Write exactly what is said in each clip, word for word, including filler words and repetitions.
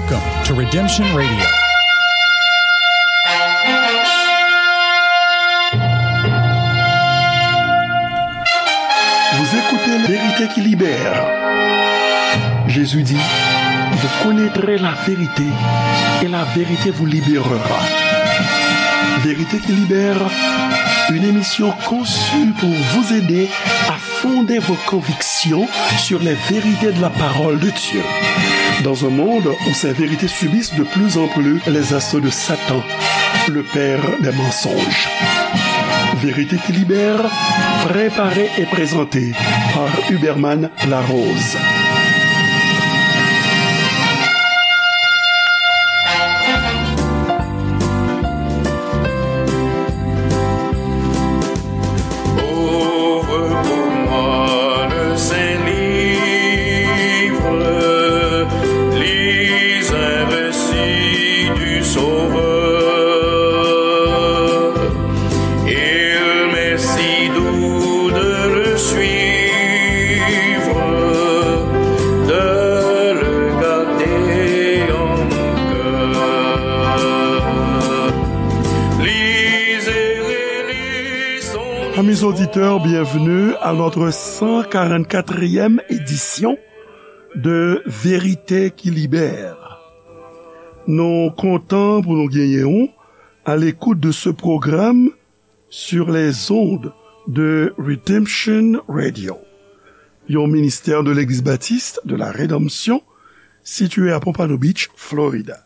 Welcome to Redemption Radio. Vous écoutez La Vérité qui libère. Jésus dit, vous connaîtrez la vérité et la vérité vous libérera. Vérité qui libère, une émission conçue pour vous aider à fonder vos convictions sur les vérités de la parole de Dieu. Dans un monde où ces vérités subissent de plus en plus les assauts de Satan, le père des mensonges. Vérité qui libère, préparée et présentée par Huberman Larose. Ouvre pour moi le Saint-Livre, lis un récit du Sauveur. Il m'est si doux de le suivre, de le garder en mon cœur. Lisez et relisons. Amis auditeurs, bienvenue à notre cent quarante-quatrième édition de Vérité qui libère. Nou kontan pou nou genyen w à l'écoute de ce programme sur les ondes de Redemption Radio, yon ministè de Legliz Batis de la Redanmsyon, sitiye a Pompano Beach, Florida.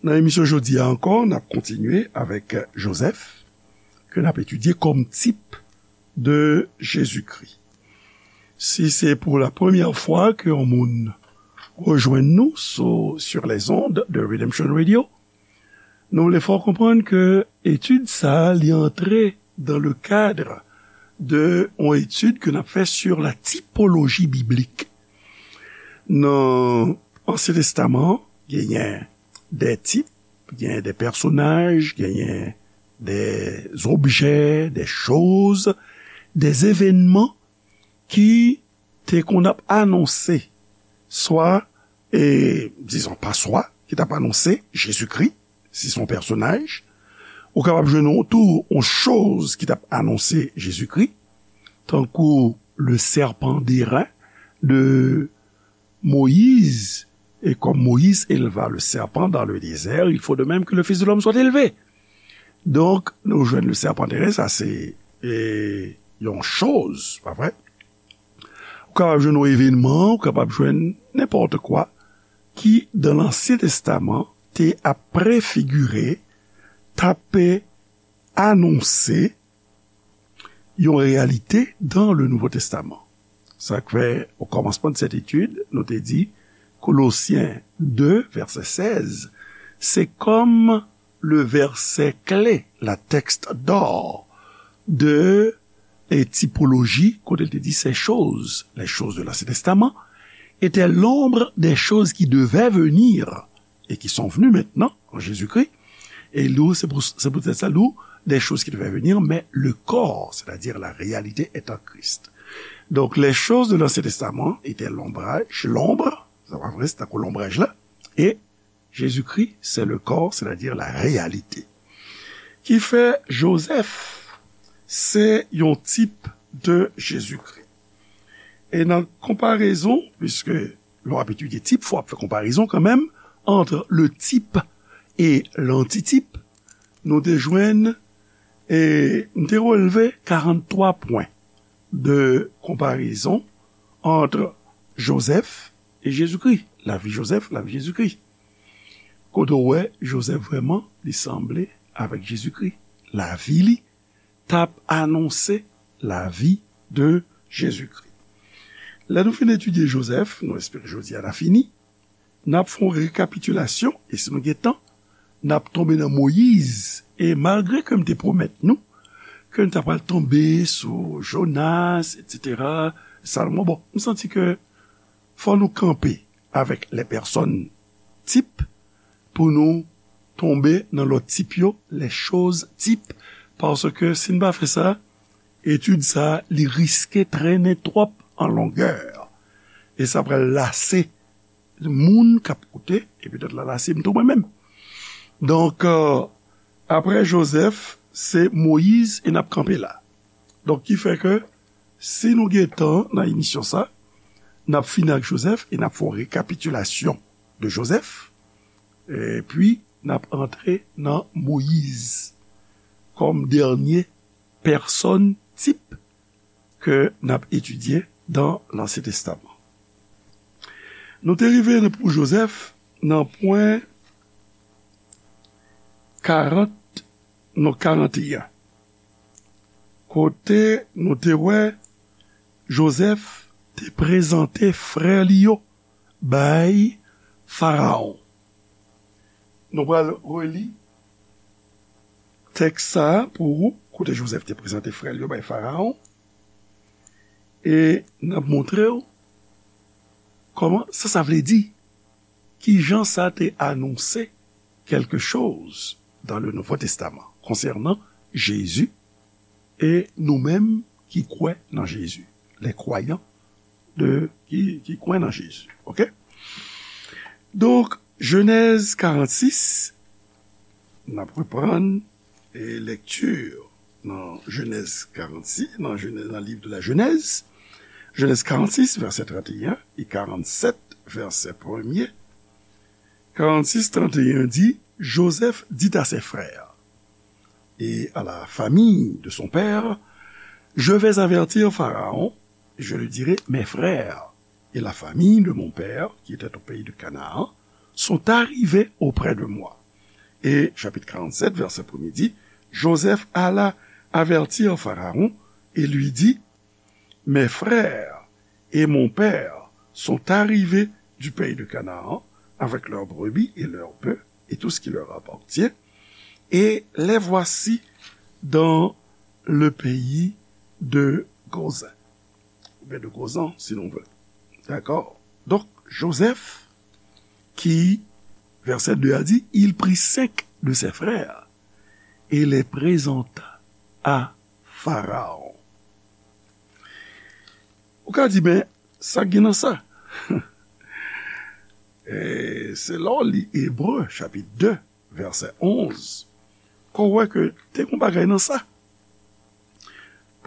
Nan emisyon jodi a ankò, n ap kontinye avèk Joseph, ke n ap etidye kòm tip de Jezikri. Si se pou la premyè fwa ke yon moun rejwenn nou sou, sur les ondes de Redemption Radio, nou vle fè w konprann ke etid sa a, li antre dans le cadre de yon etid ke n ap fè sur la typologie biblique. Nan Ansyen Testaman, genyen de tip, genyen de pèsonaj, genyen de objè, de choz, de evènman ki te konn ap anonse, swa, e, dizon, pa swa, ki t ap anonse Jezikri, si se yon pèsonaj. Ou kapab jwenn yon, tou yon choz ki t ap anonse Jezikri, tankou le serpent d'airain de Moïse, et comme Moïse éleva le serpent dans le désert, il faut de même que le Fils de l'homme soit élevé. Donk, nou jwenn le serpent d'airain, sa se, e, yon choz, pa vre? Ou kapab jwenn yon evènman, ou kapab jwenn nenpòt kwa ki, dans l'Ancien Testament, te ap prefigire, t ap anonse yon reyalite dans le Nouveau Testament. Sa k fè, o kòmansman de cette étude, nou te di, Kolosyen de, vèsè sèz, se kòm le verset clé, la texte d'or de, e, typologie, kote l te di, ces choses, les choses de l'Ancien Testament, étaient l'ombre des choses qui devaient venir et qui sont venues maintenant en Jésus-Christ. Et nous, c'est pour, c'est peut-être ça, nous, des choses qui devaient venir, mais le corps, c'est-à-dire la réalité, est en Christ. Donc, les choses de l'Ancien Testament étaient l'ombrage, l'ombre, sa pa vre, se tankou lonbraj la, e Jezikri, c'est le corps, c'est-à-dire la réalité. Ki fè Joseph, se yon tip de Jezikri. E nan konparezon, puisque lè w ap etidye tip, fò w ap fè konparezon kanmenm, entre le type et l'antitype, nou te jwenn, e m te relve karant twa pwen de konparezon entre Joseph et Jésus-Christ, lavi Joseph, lavi Jezikri. Kote w wè Joseph vrèman, li sanble avèk Jezikri. Lavi li t ap anonse lavi de Jezikri. Lè nou fin etidye Joseph, nou espere jodi a n a fini, n ap fè yon rekapitilasyon, e si nou gen tan, n ap tonbe nan Moyiz, e malgre ke m te pwomèt nou ke n ta pral tonbe sou Jonas, etsetera, Salomon, bon, m santi ke fò nou kanpe avèk les personnes types pou nou tonbe nan lòt tip yo, les choses types, paske si n pa fè sa, etid sa a, li riske trennen twòp an longè. E sa pral lase moun k ap koute, e petèt la, la, se m tou mwen menm. Donk, euh, apre Jozèf, se Moyiz, e n ap kanpe la. Donk, ki fè ke, si nou gen tan nan emisyon sa, n ap fini ak Jozèf, e n ap fè yon rekapitilasyon de Jozèf, epi n ap antre nan Moyiz kòm dènye pèsòn tip ke n ap etidye dan Lansyen Testaman. Nou te rive pou Jozèf nan pwen karant, non, karanteyen, kote nou te wè Jozèf te prezante frè li yo bay Farawon. Nou pral reli tèks sa a pou ou, kote Jozèf te prezante frè l yo bay Farawon, e n ap montre w kòman sa, sa vle di, ki jan sa te anonse quelque chose dans le Nouveau Testament concernant Jésus, e nou menm ki kwè nan Jezi, les croyants de, ki, ki kwè nan Jezi. Oke? Donk, Jenèz karannsis, n ap reprann, e, lekti nan Jenèz karannsis, nan Jenèz, nan liv de la Jenèz, Jenèz karannsis, vèsè tranteyen, e karannsèt, vèsè premye. Karannsis, tranteyen di, Joseph dit à ses frères et à la famille de son père, je vais avertir Pharaon, je lui dirai, mes frères et la famille de mon père, qui était au pays de Canaan, sont arrivés auprès de moi. Et chapitre quarante-sept, verset premier dit, Joseph alla avertir Pharaon et lui dit, mes frères et mon père sont arrivés du pays de Canaan avec leurs brebis et leurs bœufs et tout ce qui leur appartient, et les voici dans le pays de Gozan. Oubyen de Gozan, si nou vle. Dakò? Donk, Joseph, ki, vèsè de a di, il prit cinq de ses frères et les présenta à Pharaon. Ou ka di, men, sa gen nan sa? E se lè w li Ebre, chapit de, vèsè onz, ke w wè ke te gen yon bagay nan sa.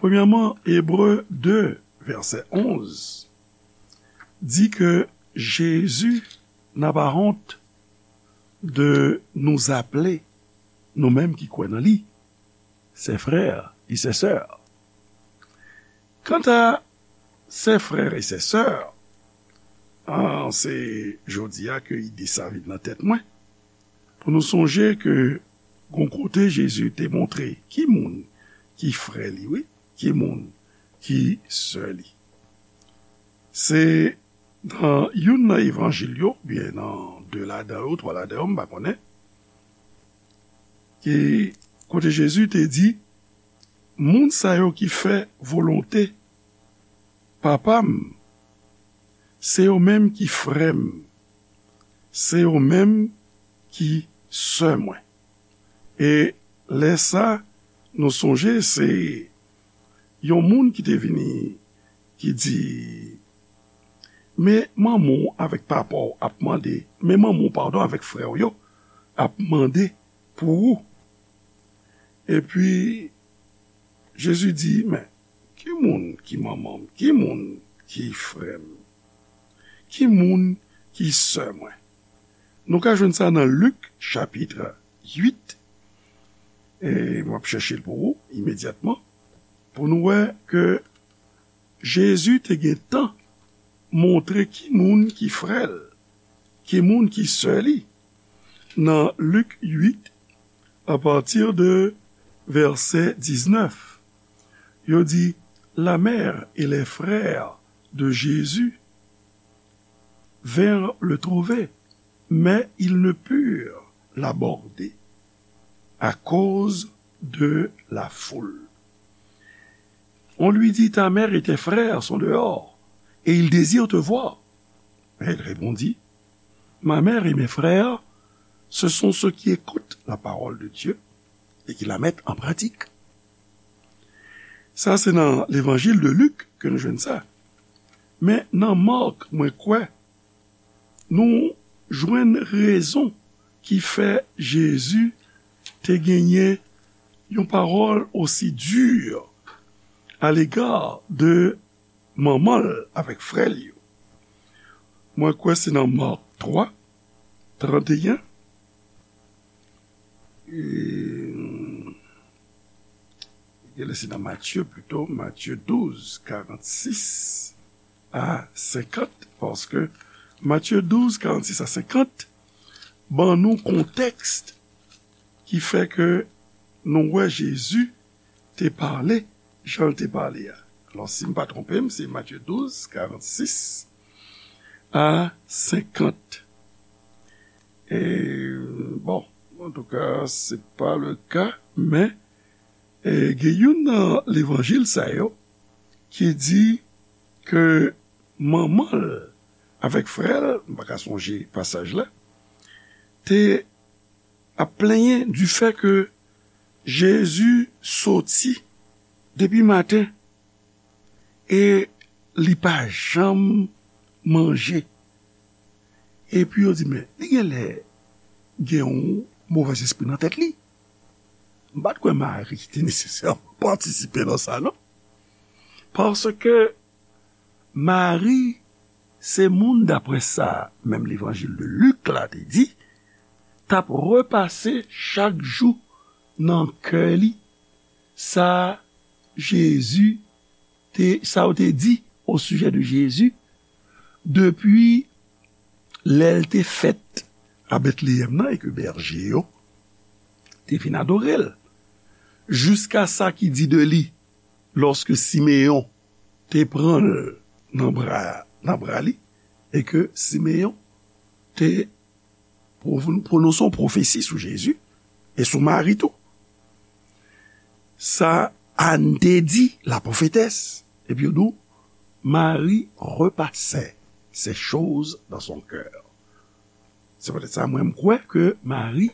Premyèman, Ebre de, vèsè onz, di ke Jésus n'a pas honte de nous appeler, nou menm ki kwè nan li, ses frères et ses sœurs. Kanta ses frères et ses sœurs, an, se jodi a ke ide sa vin nan tèt mwen, pou nou sonje ke gon kote Jezi te montre ki moun ki frè li, wi, ki moun ki sè li. Se nan youn nan evanjil yo, oubyen nan de ladan yo, twa ladan yo, m pa konnen, ki kote Jezi te di, moun sa yo ki fè volonte Papa m, se yo menm ki frè m, se yo menm ki sè mwen. E lè sa, nou sonje se yon moun ki te vini, ki di, men manman w avèk papa w ap mande, men manman w, padon, avèk frè w yo ap mande pou ou. Epi, Jezi di, men, ki moun ki manman m? Ki moun ki frè m? Ki moun ki sè mwen? Nou ka jwenn sa nan Lik, chapit uit, e m ap chèche l pou ou imedyatman, pou nou wè ke Jezi te gen tan montre ki moun ki frè l, ki moun ki sè li. Nan Lik uit, apati de vèsè diznèf, yo di, la mère et les frères de Jésus vinrent le trouver, mais ils ne purent l'aborder à cause de la foule. On lui dit, ta mère et tes frères sont dehors, et ils désirent te voir. Mais il répondit, ma mère et mes frères, ce sont ceux qui écoutent la parole de Dieu et qui la mettent en pratique. Sa se nan levanjil de Lik ke nou jwenn sa. Men nan Mak, mwen kwè, nou jwenn rezon ki fè Jezi te genyen yon pawòl osi di alega de manman l avèk frè l yo. Mwen kwè se nan Mak twa, trannteyen. E, genlè se nan Matye pito, Matye douz, karannsis a senkant, paske Matye douz, karannsis a senkant ban nou kontèks ki fè ke nou wè Jezi te pale jan l te pale a. Alò, si m pa twonpe m, se Matye douz, karannsis a senkant. E, bon, antouka, se pa le ka, men, e, gen youn nan levanjil sa yo ki di ke manman l avèk frè l, m pa ka sonje pasaj la, te ap plenyen di fè ke Jezi soti depi maten e li pa janm manje. Epi yo di, men, li genlè gen yon movèzespri nan tèt li. M pa t kwè Mari te nesesèman patisipe nan sa, non. Paske Mari se moun, daprè sa menm levanjil de Lik la te di, t ap repase chak jou nan kè li sa Jezi te, sa yo te di o sijè de Jezi depi lè l te fèt a Betleyèm nan e ke bèje yo te vin adore l, jiska sa ki di de li lòske Simeyon te pran l nan bra, nan bra li, e ke Simeyon te pwo-, pwononse yon pwofesi sou Jezi e sou Mari tou. Sa Ann te di, la prophétesse, epi yo di w, Marie repassait ces choses dans son cœur. Se poutèt sa, mwen, m kwè ke Mari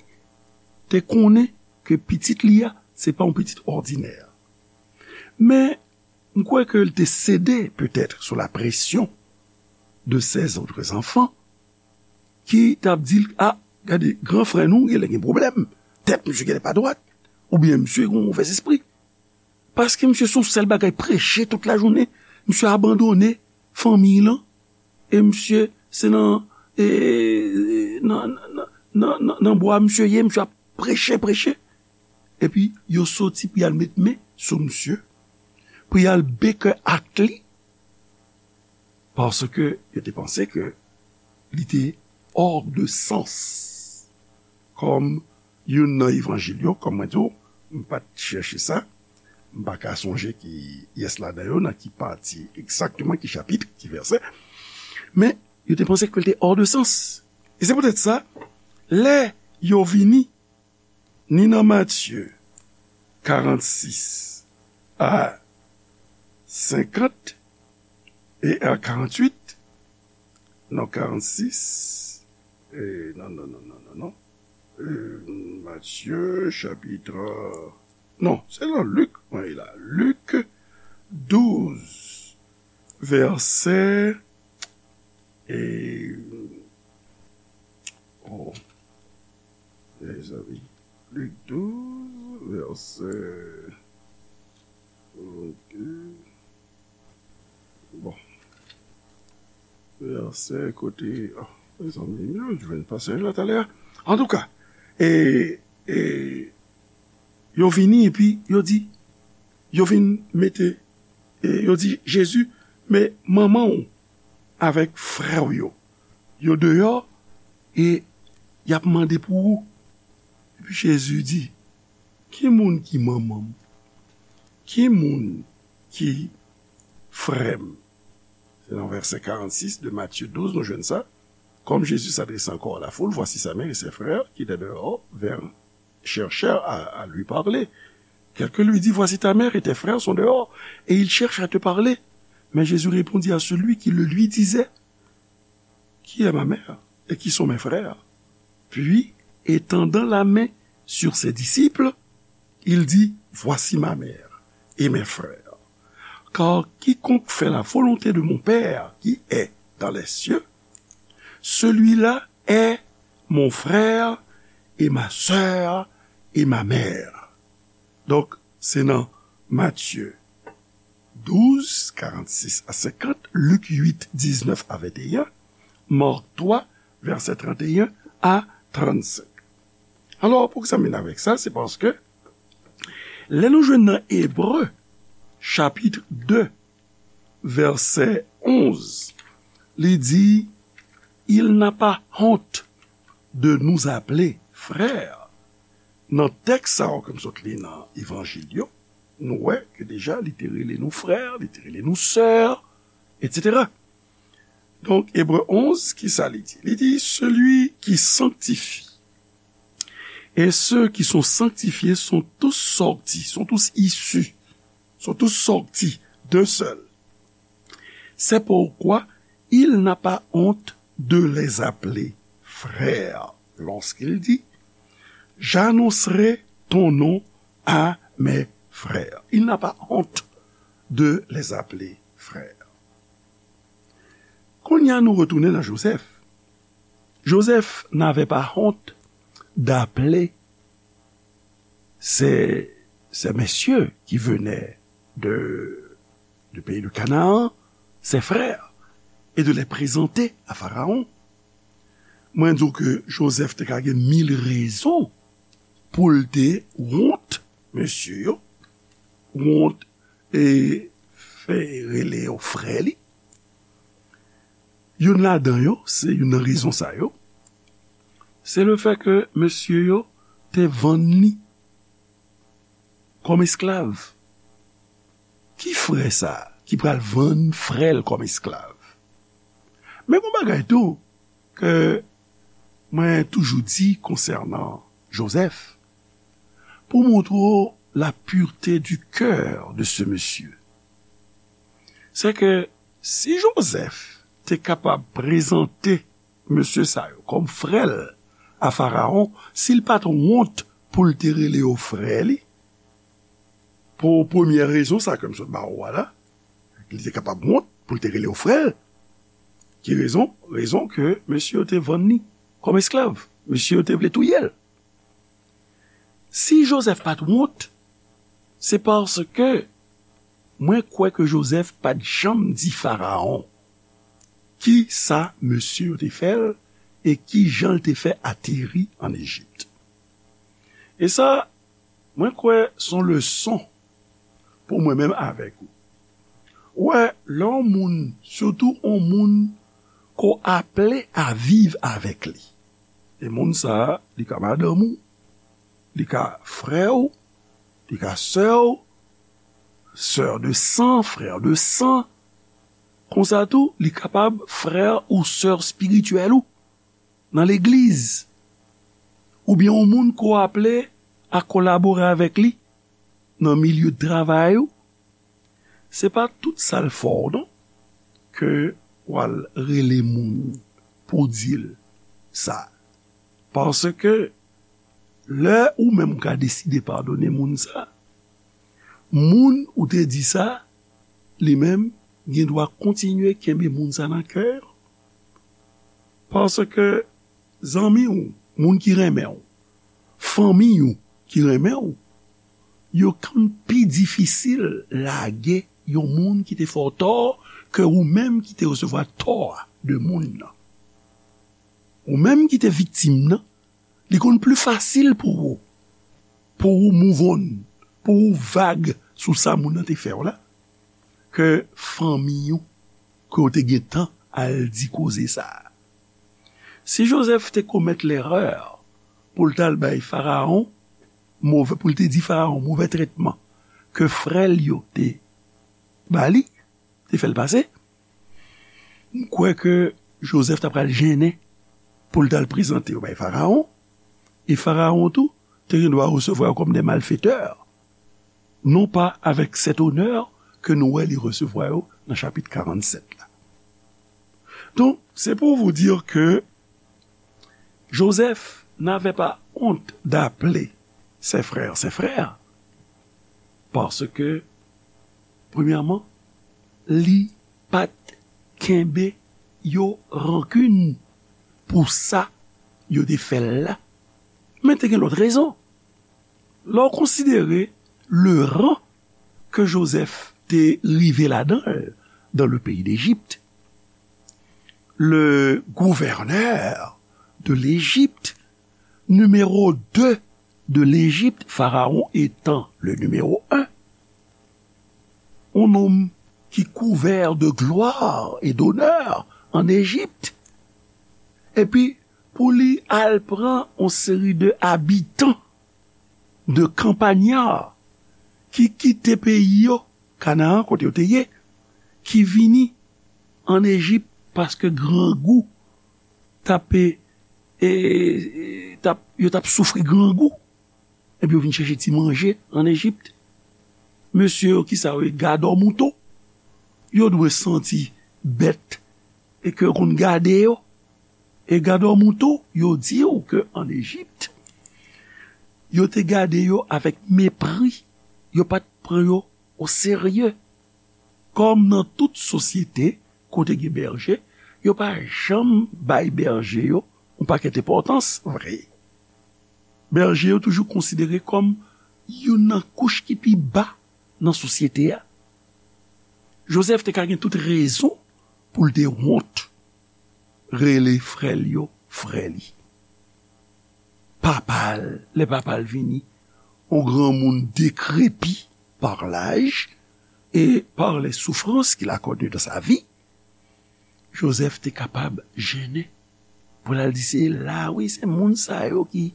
te konnen ke pitit li a, se pa yon pitit òdinè. Men, m kwè ke l te sede, petèt, sou la pression de ses autres enfants, ki t ap di l, a, gade, gran frè nou, genlè gen pwoblèm, tèt misye genlè pa dwat, oubyen misye gen yon movèzespri. Paske misye se yon sèl bagay, preche tout lajounen, misye abandone fanmi l lan, e misye se nan, e, nan, nan, nan, nan, nan bwa misye ye, misye ap preche, preche. Epi, yo soti pou y al met men sou misye, pou y al bèkè ak li, paske yo te panse ke li te hors de sens. Kòm youn nan evanjil yo, kòm mwen di w, m pa t chèche sa, m pa ka sonje ki pyès ladan yo, nan ki pati egzakteman, ki chapit, ki vèsè, men yo te panse ke l te hors de sens. E se poutèt sa, lè yo vini, ni nan Matye karannsis a senkant e a karannwit, non, karannsis, e, non, non, non, non, non, non. E, Matye, chapit, non, se nan Lik, mwen ye la. Lik douz, vèsè, e, oh, mezanmi. Lik douz, vèsè, ok. Bon. Vèsè kote, oh, mezanmi, m jwenn pasaj la talè a. Antouka, e, e, yo vini epi yo di, yo vin mete, e, yo di, Jezi, men manman w avèk frè w yo, yo deyò e y ap mande pou ou. Epi Jezi di, ki moun ki manman m? Ki moun ki frè m? Se nan vèsè karannsis de Matye douz nou jwenn sa. Comme Jésus s'adressait encore à la foule, voici sa mère et ses frères qui étaient dehors, vinrent, cherchèrent à, à lui parler. Quelqu'un lui dit, voici ta mère et tes frères sont dehors, et ils cherchent à te parler. Mais Jésus répondit à celui qui le lui disait, qui est ma mère et qui sont mes frères? Puis, étendant la main sur ses disciples, il dit, voici ma mère et mes frères. Car quiconque fait la volonté de mon Père qui est dans les cieux, Celui-là est mon frère et ma sœur et ma mère. Donk, se nan Matye douz, karannsis a senkant, Lik uit, diznèf a venteyen, Mak twa, vèsè tranteyen a trannsenk. Alò, pou egzamine avèk sa, se paske lè nou jwenn nan Ebre, chapit de, vèsè onz, li di, Il n'a pas honte de nous appeler frères. Nan tèks sa yo ke m sot li nan Evanjil yo, nou wè ke deja li te rele nou frè, li te rele nou sè, etsetera. Donk, Ebre onz, ki sa li di? Li di, Celui qui sanctifie et ceux qui sont sanctifiés sont tous sortis, sont tous issus, sont tous sortis d'un seul. C'est pourquoi il n'a pas honte de les appeler frères lorsqu'il dit, J'annoncerai ton nom à mes frères. Il n'a pas honte de les appeler frères. Kounye a nou retounen nan Joseph. Joseph n'avait pas honte d'appeler ces, ces messieurs qui venaient de, du pays de Canaan, ses frères, et de les présenter à Pharaon. Mwen di w ke Joseph te ka gen mil rezon pou l te wont mesye yo, wont e fè rele yo frè li. Youn ladan yo, se youn nan rezon sa yo, se le fè ke mesye yo te vann li kòm esklav. Ki frè sa a ki pral vann frè l kòm esklav? Men gon bagay tou ke mwen toujou di konsènan Joseph, pou montre w la pureté du cœur de ce monsieur, se ke si Joseph te kapab prezante mesye sa yo kòm frè l a Farawon, si l pa t wont pou l te rele yo frè li, pou premyè rezon sa ke m sot ba ou a la, li te kapab wont pou l te rele yo frè l. Ki rezon? Rezon ke mesye yo te vann li kòm esklav. Mesye yo te vle touye l. Si Joseph pa t wont, se paske mwen kwè ke Joseph pa t janm di Farawon ki sa mesye yo te fè l e ki jan l te fè ateri ann Ejip. E sa, mwen kwè se yon leson pou mwen menm avèk ou. Ou wè, lè yon moun, sitou yon moun ke w aple a viv avèk li, e moun sa a, li ka madanm ou, li ka frè w, li ka sè w, sè de san, frè de san. Konsa tou, li kapab frè ou sè espirityèl ou nan legliz. Oubyen yon moun ke w aple a kolabore avèk li nan milye de travay ou. Se pa tout sa l fè w non, ke w al rele moun pou w di l sa. Paske lè ou menm ou ka deside padone moun sa, moun ou te di sa, li menm gen dwa kontinye kenbe moun sa nan kè l. Paske zanmi w, moun ki renmen w, fanmi w ki renmen w, yo konn pi difisil lage yon moun ki te fè w tò ke ou menm ki te resevwa tò a de moun nan. Ou menm ki te viktim nan, li konn pli fasil pou ou, pou ou move on, pou ou vag sou sa moun nan te fè w la, ke fanmi w ke w te gentan al di koze sa a. Si Joseph te komèt lerè pou l t al bay Farawon movè, pou l te di Farawon movè tretman ke frè l yo te ba li, te fè l pase, m kwè ke Joseph ta pral jennen pou l t al prezante yo bay Farawon, e Farawon tou te gen dwa resevwa yo kòm de malfetè, non pa avèk sèt onè ke nou wè li resevwa yo nan chapit karannsèt la. Donk, c'est pour vous dire que Joseph n'avait pas honte d'appeler ses frères ses frères, paske, premyèman, li pa t kenbe yo rankin. pou sa yo te fè l la. Men te gen lòt rezon. Lè w konsidere le ran ke Jozèf te rive ladan l dans le pays d'Égypte, le gouverneur de l'Égypte, numéro deux de l'Égypte, Pharaon étant le numéro un, yon nonm ki kouvè de glwa e donè an Ejip, epi pou li al pran yon seri de abitan de kanpanya ki kite peyi yo, Kanaan, kote yo te ye, ki vini an Ejip paske grangou t ap, e, e, t ap, yo t ap soufri grangou. Epi yo vin chèche ti manje an Ejip. Mesye yo, kisa yo ye? Gadò mouton. Yo dwe santi bèt e ke yo konn gade yo. E gadò mouton, yo di w ke an Ejip, yo te gade yo avèk mepri. Yo pa t pran yo oserye. Kòm nan tout sosyete kote gen bèje, yo pa janm bay bèje yo yon pakèt enpòtans vre. Bèje yo toujou konsidere kòm youn nan kouch ki pi ba nan sosyete a. Jozèf te ka gen tout rezon pou l te wont rele frè l yo frè li. Papa l, lè papa l vini, yon granmoun dekrepi par laj e par les souffrances qu'il a connues dans sa vie, Jozèf te kapab jennen pou l al di, se la, wi, se moun sa yo ki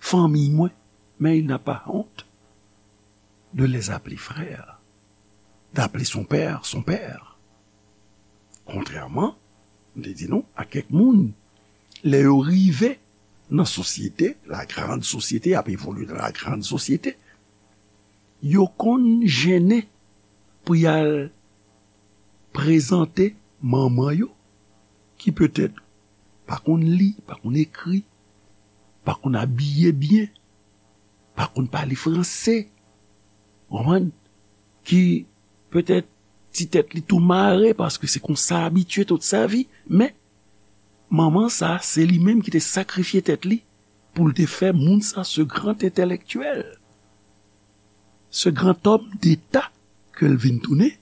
fanmi mwen, mais il n'a pas honte de les appeler frères, d'appeler son père son père. Kontrèman, m te di nou, a kèk moun, lè yo rive nan sosyete, la grande société, ap evolye nan la grande société, yo konn jennen pou y al prezante manman yo, ki petèt pa konn li, pa konn ekri, pa konn abiye byen, pa konn pale franse, w konprann? Ki petèt ti tèt li tou mare paske se konsa abitye tout sa vi, men manman sa, se li menm ki te sakrifye tèt li pou l te fè moun sa, ce grand intellectuel, ce grand homme d'État ke l vin tounen,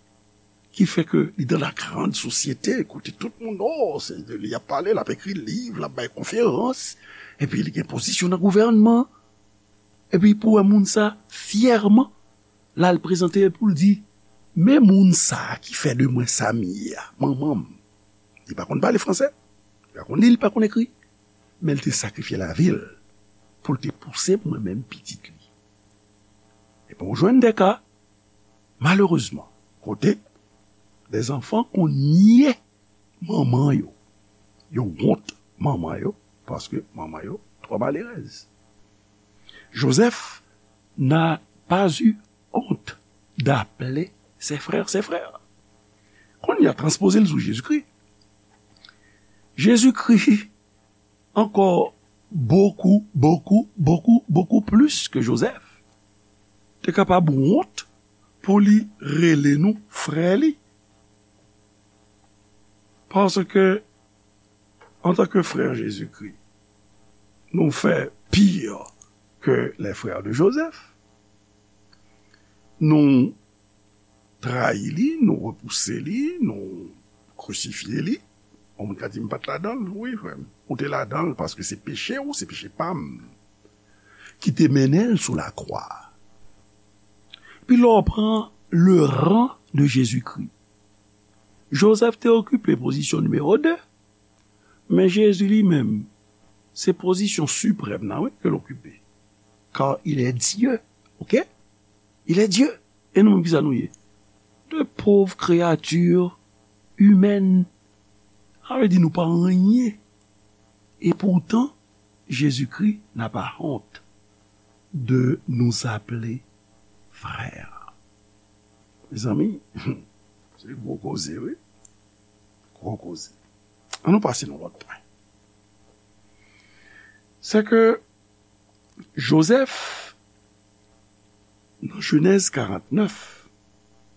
ki fè ke li dans la grande société, kote tout moun, oh, se de li y ap pale, l ap ekri liv, l ap bay konferans, epi li gen pozisyon nan gouvènman. Epi pou wè moun sa, fyèman, l al prezante l pou l di, men moun sa ki fè de mwen sa m ye a, manman m. Li pa konn pale franse, li pa konn li, li pa konn ekri, men l te sakrifye lavi l pou l te pouse mwen menm pitit li. Epi w jwenn de ka, malerezman, kote de zanfan konn nye manman yo. Yo wont manman yo, paske manman yo twò malerèz. Joseph n'a pas eu honte d'appeler ses frères ses frères. Kounye a, transpoze l sou Jezikri. Jezikri ankò bokou, bokou, bokou, bokou plis ke Jozèf te kapab wont pou li rele nou frè li. Paske, antanke frè Jezikri, nou fè pire ke les frères de Joseph. Nou trayi li, nou repouse li, nou krisifye li. Yon moun ka di, "M pa t ladan l." Wi, frè m, ou te ladan l, paske se peche w, se peche pa m ki te mennen l sou lakwa. Epi lè w pran le ran de Jezikri, Jozèf te okipe pozisyon nimewo de, men Jezi li menm, se pozisyon siprèm nan, wi, ke l okipe. Car il est Dieu, ok? Il est Dieu. E nou menm, kisa nou ye? De pauvres créatures humaines. Sa vle di nou pa anyen. Et pourtant, Jésus-Christ n'a pas honte de nous appeler frères. Mezanmi, se gwo koze, wi. Gwo koze. Ann nou pase nan lòt pwen. Se ke Jozèf, nan Jenèz karantnèf,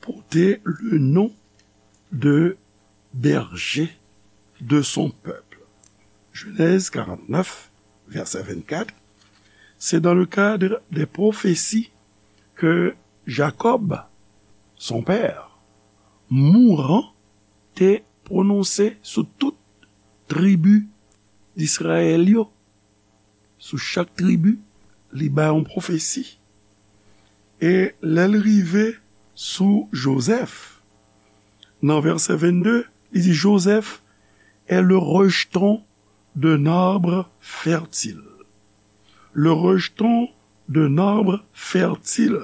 pote le nom de berger de son peuple. Genèse quarante-neuf, verset vingt-quatre, c'est dans le cadre des prophéties que Jacob, son père, mourant, te pwononse sou tout tribi d'Israël yo. Sou chak tribi, li bay yon pwofesi. E lè l rive sou Joseph, nan verset vingt-deux, li di, Joseph est le rejeton d'un arbre fertile. Le rejeton d'un arbre fertile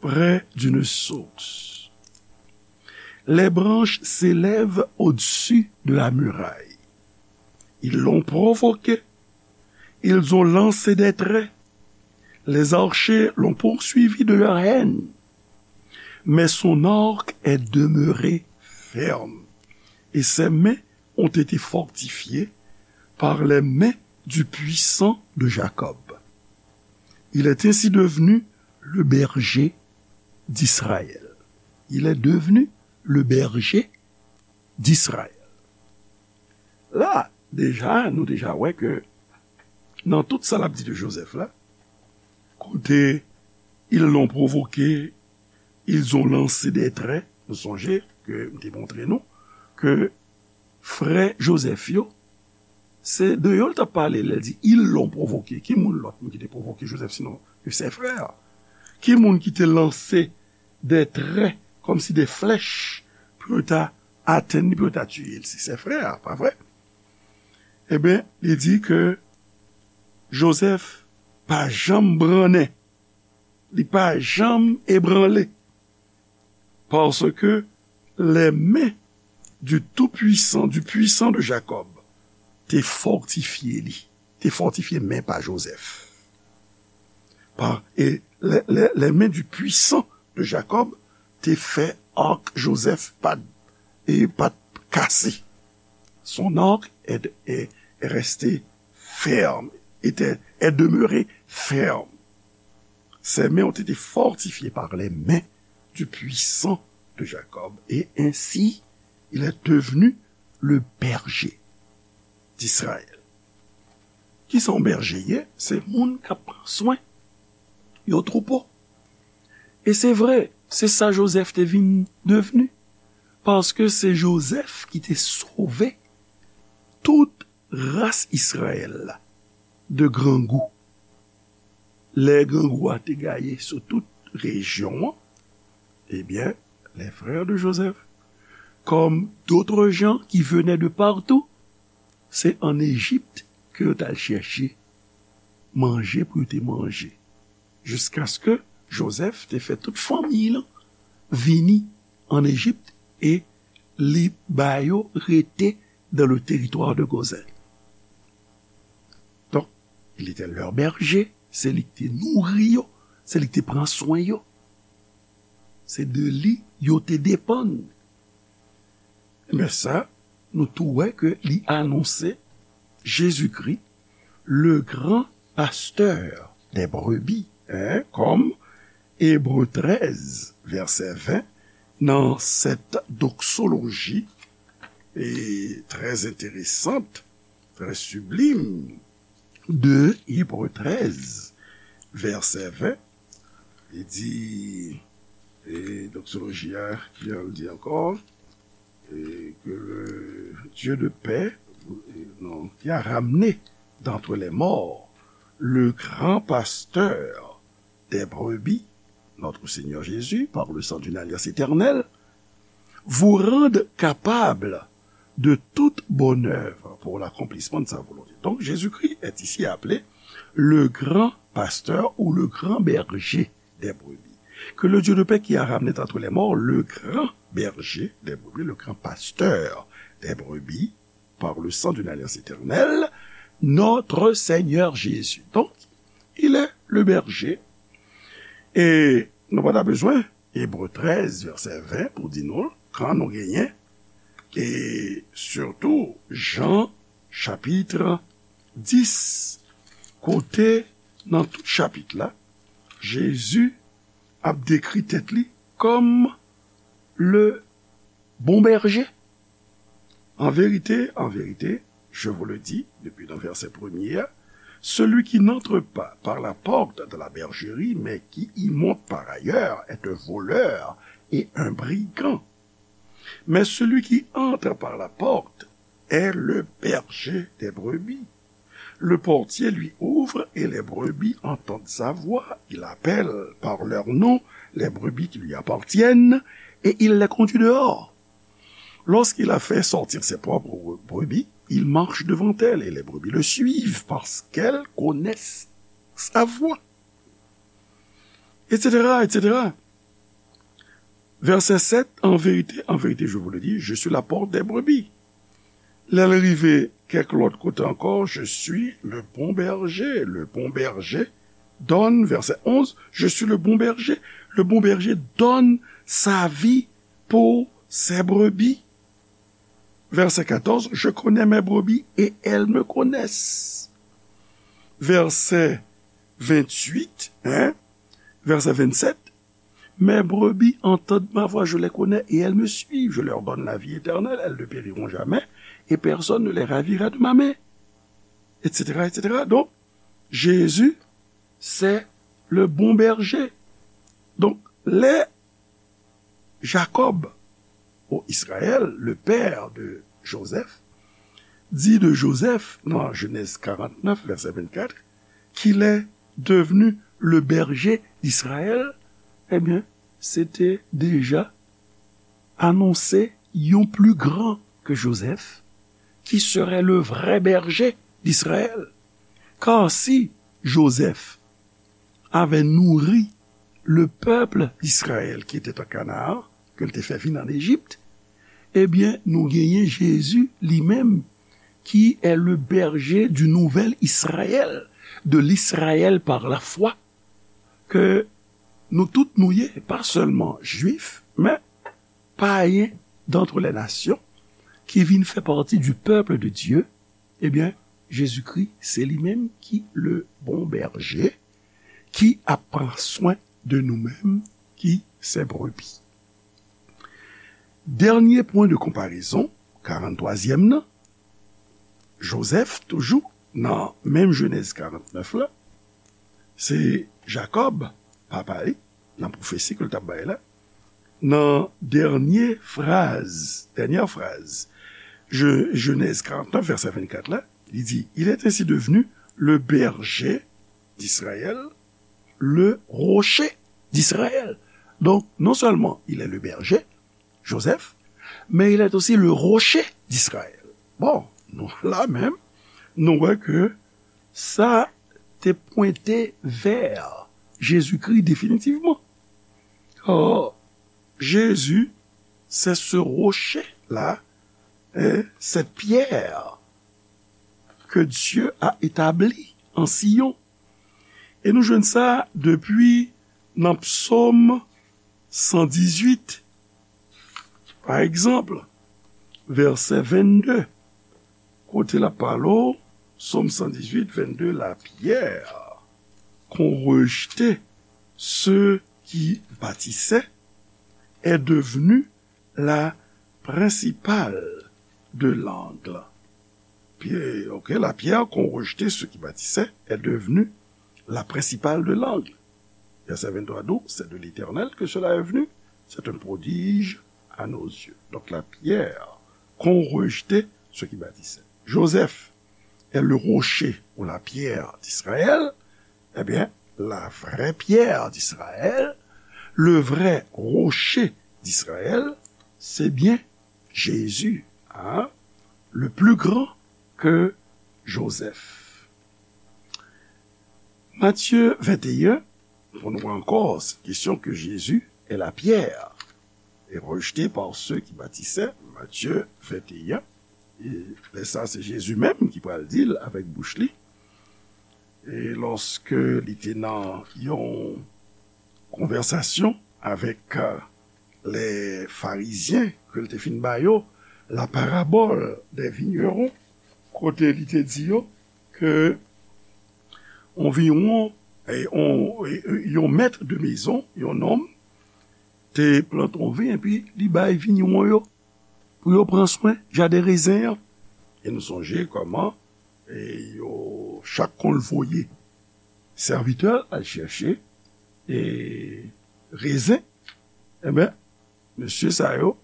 près d'une source. Les branches s'élèvent au-dessus de la muraille. Ils l'ont provoqué. Ils ont lancé des traits. Les archers l'ont poursuivi de leur haine. Mais son arc est demeuré ferme, et ses mains ont été fortifiées par les mains du puissant de Jacob. Il est ainsi devenu le berger d'Israël. Il est devenu le berger d'Israël. La, deja, nou deja wè ke nan tout sa l ap di de Joseph la, kote ils l'ont provoqué, ils ont lancé des traits, nou sonje ke m te montre nou ke frè Joseph yo, se de yo l t ap pale lè l di ils l'ont provoqué. Ki moun lòt moun ki te pwovoke Joseph sinon ke ses frères? Ki moun ki te lanse des traits, kòmsi des flèches, pou yo ta atenn li, pou yo ta tiye l? Se ses frères, pa vre? Ebyen, li di ke Joseph pa janm brannen, li pa janm ebranle, parce que les mains du Tout-Puissant, du Puissant de Jacob, te fòtifye li, te fòtifye men pa Joseph. Pa, e les, les, les mains du Puissant de Jacob te fè arc Joseph pa t, e pa t kase. Son arc est, est, est resté ferme, était, est demeuré ferme. Ses mains ont été fortifiées par les mains du Puissant de Jacob, et ainsi il est devenu le berger d'Israël. Kisa yon bèje ye? Se moun k ap pran swen yon twoupo. E se vre, se sa Joseph te vin devni. Paske se Joseph ki te sove tout ras Izrayèl la de grangou. Lè grangou a te gaye sou tout rejyon an, ebyen, les frères de Joseph, comme d'autres gens qui venaient de partout, se ann Ejip ke yo t al chèche manje pou yo te manje. Jiskaske Joseph te fè tout fanmiy lan vini ann Ejip e li ba yo rete dans le territoire de Gozen. Donk, il était leur berger, se li ki te nouri yo, se li ki te pran swen yo. Se de li yo te depann. Men sa, nou tou wè ke li anonse Jezikri, le grand pasteur des brebis, hein, kòm Ebre trèz, vèsè ven, nan sèt doksoloji, e, trè enteresant, trè siblim, de Ebre trèz, vèsè ven, li di, e, doksoloji a, ki jan l di ankò, e, que le Dieu de paix, e, non, qui a ramené d'entre les morts le grand pasteur des brebis, notre Seigneur Jésus, par le sang d'une alliance éternelle, vous rende capable de toute bonne œuvre pour l'accomplissement de sa volonté. Donc Jésus-Christ est ici appelé le grand pasteur ou le grand berger des brebis. Que le Dieu de paix qui a ramené d'entre les morts le grand berger des brebis, le grand pasteur des brebis, par le sang d'une alliance éternelle, notre Seigneur Jésus. Donc, il est le berger. E nou pa ta bezwen Ebre trèz, vèsè ven, pou di nou, kan nou genyen, e sitou Jan chapit dis, kote nan tout chapit la, Jezi ap dekri tèt li kòm le bon berger. An verite, an verite, je vous le dis, depuis dans verset premier, celui qui n'entre pas par la porte de la bergerie, mais qui y monte par ailleurs, est un voleur et un brigand. Mais celui qui entre par la porte est le berger des brebis. Le portier lui ouvre et les brebis entendent sa voix. Il appelle par leur nom les brebis qui lui appartiennent et il les conduit dehors. Lorsqu'il a fait sortir ses propres brebis, il marche devant elles et les brebis le suivent parce qu'elles connaissent sa voix. Et cetera, et cetera. Verset sept, en vérité, en vérité, je vous le dis, je suis la porte des brebis. Lè l rive kèk lòt kote ankò, je suis le bon berger. Le bon berger donne, verset onze, je suis le bon berger. Le bon berger donne sa vie pour ses brebis. Verset quatorze, je connais mes brebis et elles me connaissent. Verset vingt-huit, hein, verset vingt-sept, mes brebis entendent ma voix, je les connais et elles me suivent. Je leur donne la vie éternelle, elles ne périront jamais et personne ne les ravira de ma main, et cetera, et cetera. Donc, Jésus, c'est le bon berger. Donc, les Jacob, ou Israël, le père de Joseph, dit de Joseph, dans Genèse quarante-neuf, verset vingt-quatre, qu'il est devenu le berger d'Israël, eh bien, c'était déjà annoncé, il y a un plus grand que Joseph, qui serait le vrai berger d'Israël. Car si Joseph avait nourri le peuple d'Israël qui était en Canaan, ke l te fè vin an Ejip, ebyen, nou genyen Jezi li menm, qui est le berger du nouvel Israël, de l'Israël par la foi, ke nou tout nou ye, pa sèlman jwif, men payen d'entre les nations, ki vin fè pati du peuple de Dieu, ebyen, Jezikri, se li menm ki le bon berger, ki ap pran swen de nou menm, ki ses brebis. Dènye pwen de konparezon, karant twazyèm nan, Jozèf, toujou nan menm Jenèz karant nèf la, se Jakòb, papa li, nan pwofesi ke l t ap bay la, nan dènye fraz, dènyè fraz, Je-, Jenèz karant nèf, vèsè vennkat la, li di, Il est ainsi devenu le berger d'Israël, le rocher d'Israël. Donc, non seulement il est le berger, Joseph, mais il est aussi le rocher d'Israël. Bon, nou la menm, nou wè ke sa te pwente vè Jezikri definitivman. Or, Jésus, c'est ce rocher-là, hein, cette pierre que Dieu a établie en Sion. E nou jwenn sa depi nan Psaume cent dix-huit, pa egzanp, vèsè vennde, kote l ap pale w, Psaume cent dix-huit, vennde, La pierre qu'ont rejetée ceux qui bâtissaient est devenue la principale de l'angle. Pierre, ok, la pierre qu'ont rejetée ceux qui bâtissaient est devenue la principale de l'angle. Verset vingt-trois, d'où c'est de l'Éternel que cela est venu, c'est un prodige à nos yeux. Donc la pierre qu'ont rejetée ceux qui bâtissaient. Joseph est le rocher ou la pierre d'Israël, eh bien, la vraie pierre d'Israël, le vrai rocher d'Israël, c'est bien Jésus, hein, le plus grand que Joseph. Matthieu vingt et un, pou nou wè ankò, se kesyon ke Jésus est la pierre et rejeté par ceux qui bâtissaient, Matthieu vingt et un, e lè sa se Jezi menm ki pral di l avèk bouch li, e lòske li te nan yon konvèsasyon avèk, euh, les Pharisien, ke l te fin ba yo la parabole des vignerons, kote li te di yo ke anviwon, e, on, e, e, yon mèt de mezon, yon nonm, te plante yon vin, epi li bay vigneron yo pou yo pran swen jaden rezen an. E nou sonje kòman e yo chak konn voye sèvitè al chèche e rezen. Enben, mesye sa yo,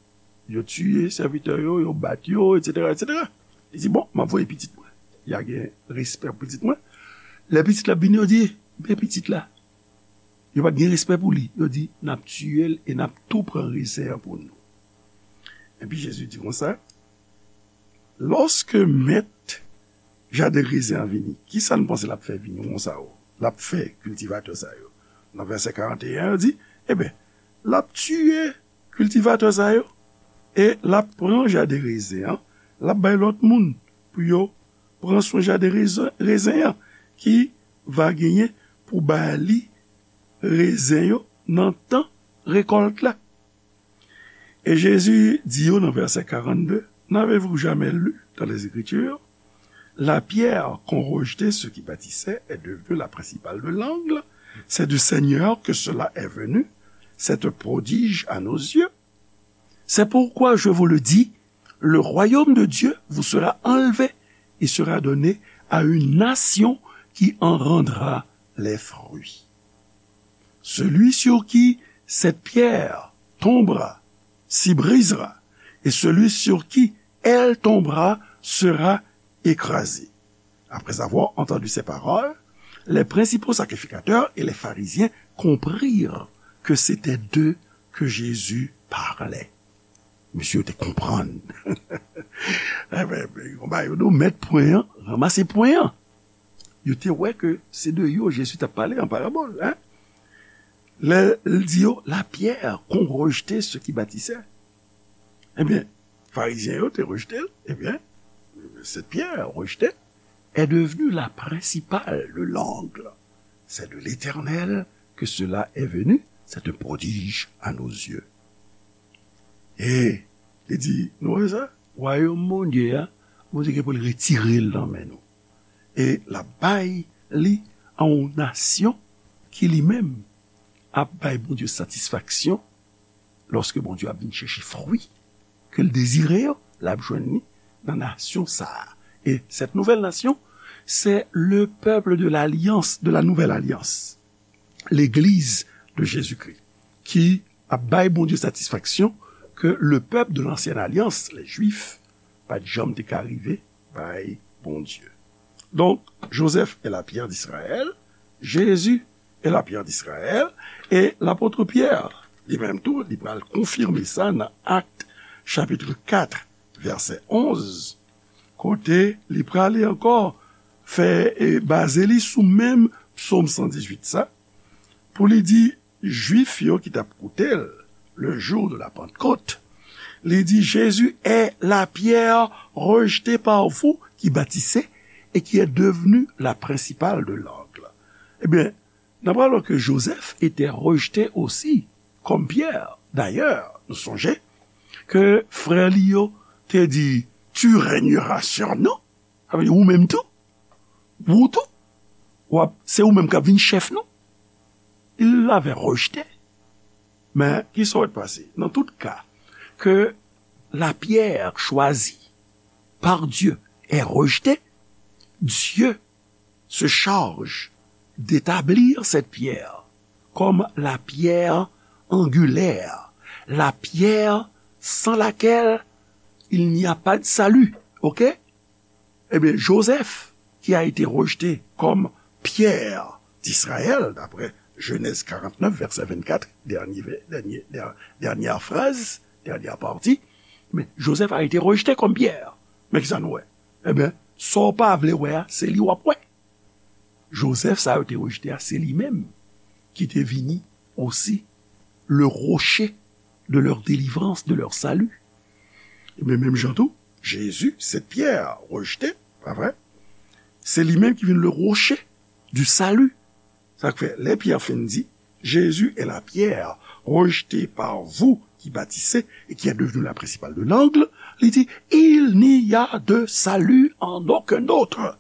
yo tiye sèvitè yo, yo bat yo, etsetera, etsetera. Li di, bon, m ap voye pitit mwen. Y a gen respè pou pitit mwen. Lè pitit la vini, yo di, men pitit la. Yo pa t gen respè pou li. Yo di, n ap tiye l e n ap tou pran rezen an pou nou. Epi Jezi di konsa, lòske mèt jaden rezen an vini, kisa n panse l ap fè vignon sa yo? L ap fè kiltivatè sa yo? Nan vèsè karant e en, yo di, enben, l ap tiye kiltivatè sa yo e l ap pran jaden rezen an, l ap bay lòt moun pou yo pran swen jaden rezen, rezen an ki va genyen pou ba li rezen yo nan tan rekòlt la. Et Jésus dit, nan vèsè karannde, n'avez-vous jamais lu dans les Écritures, la pierre qu'ont rejetée ceux qui bâtissaient est devenue la principale de l'angle? C'est du Seigneur que cela est venu, c'est un prodige à nos yeux. C'est pourquoi je vous le dis, le royaume de Dieu vous sera enlevé et sera donné à une nation qui en rendra les fruits. Celui sur qui cette pierre tombera s'y brisera, et celui sur qui elle tombera sera écrasé. Après avoir entendu ces paroles, les principaux sacrificateurs et les pharisiens comprirent que c'était d'eux que Jésus parlait. Mesye yo te konprann. Enben, konba yo do mèt pwen an, ranmase pwen an. Yo te wè ke se de yo Jezi t ap pale an parabòl, hein? Lè l di yo, la pierre qu'ont rejeté ceux qui bâtissaient. Ebyen, Farizyen yo te rejte l, ebyen, cette pierre rejetée est devenue la principale de l'angle. C'est de l'Éternel que cela est venu, c'est un prodige à nos yeux. E li di, nou wè sa? Wayòm Bondye a, Bondye gen pou l retire l nan men nou. E l ap bay li a yon nasyon ki li menm ap bay Bondye satisfaksyon. Lòske Bondye ap vin chèche fwi ke l dezire yo, l ap jwenn li nan nasyon sa a. Et cette nouvelle nation, c'est le peuple de l'alliance, de la nouvelle alliance, l'église de Jésus-Christ, ki ap bay Bondye satisfaksyon ke le peuple de l'ancienne alliance, les Juifs, pa t janm te ka rive bay Bondye. Donk, Joseph est la pierre d'Israël, Jésus est la pierre d'Israël, e lapot Pyè, li menm tou, li pral konfime sa nan Actes chapitre quatre, verset onze, kote li prale ankò fè e baze li sou menm Psaume cent dix-huit sa, pou li di, Jwif yo ki t ap koute l, le jour de la Pentecôte, li di, Jésus est la pierre rejetée par vous qui bâtissez et qui est devenue la principale de l'angle. Ebyen, n ap wè ke Joseph était rejeté aussi comme pierre. D'ailleurs, nou sonje ke frè li yo te di, tu régneras sur nous. Sa vle di ou menm tou, ou tou, w ap, se ou menm k ap vin chèf nou. Il l'avait rejeté. Men, ki sa w wè t pase? Dans tout cas, que la pierre choisie par Dieu est rejetée, Dieu se charge d'établir cette pierre comme la pierre angulaire, la pierre sans laquelle il n'y a pas de salut. Ok? Ebyen, Joseph, qui a été rejeté comme pierre d'Israël, d'après Genèse quarante-neuf, verset vingt-quatre, dernier, dernier, dernière phrase, dernière partie, mais Joseph a été rejeté comme pierre. Men ki sa nou wè? Ebyen, sa w pa vle wè a, se li w ap wè. Joseph sa yo te rejte a, se li menm ki te vini osi le rocher de leur délivrance, de leur salut. Ebyen, menm jan tou, Jésus, cette pierre rejetée, pa vre? Se li menm ki vin le rocher du salut. Sa k fè, lè Pyè fin di, Jésus est la pierre rejetée par vous qui bâtissez et qui est devenue la principale de l'angle, li di, il n'y a de salut en aucun autre.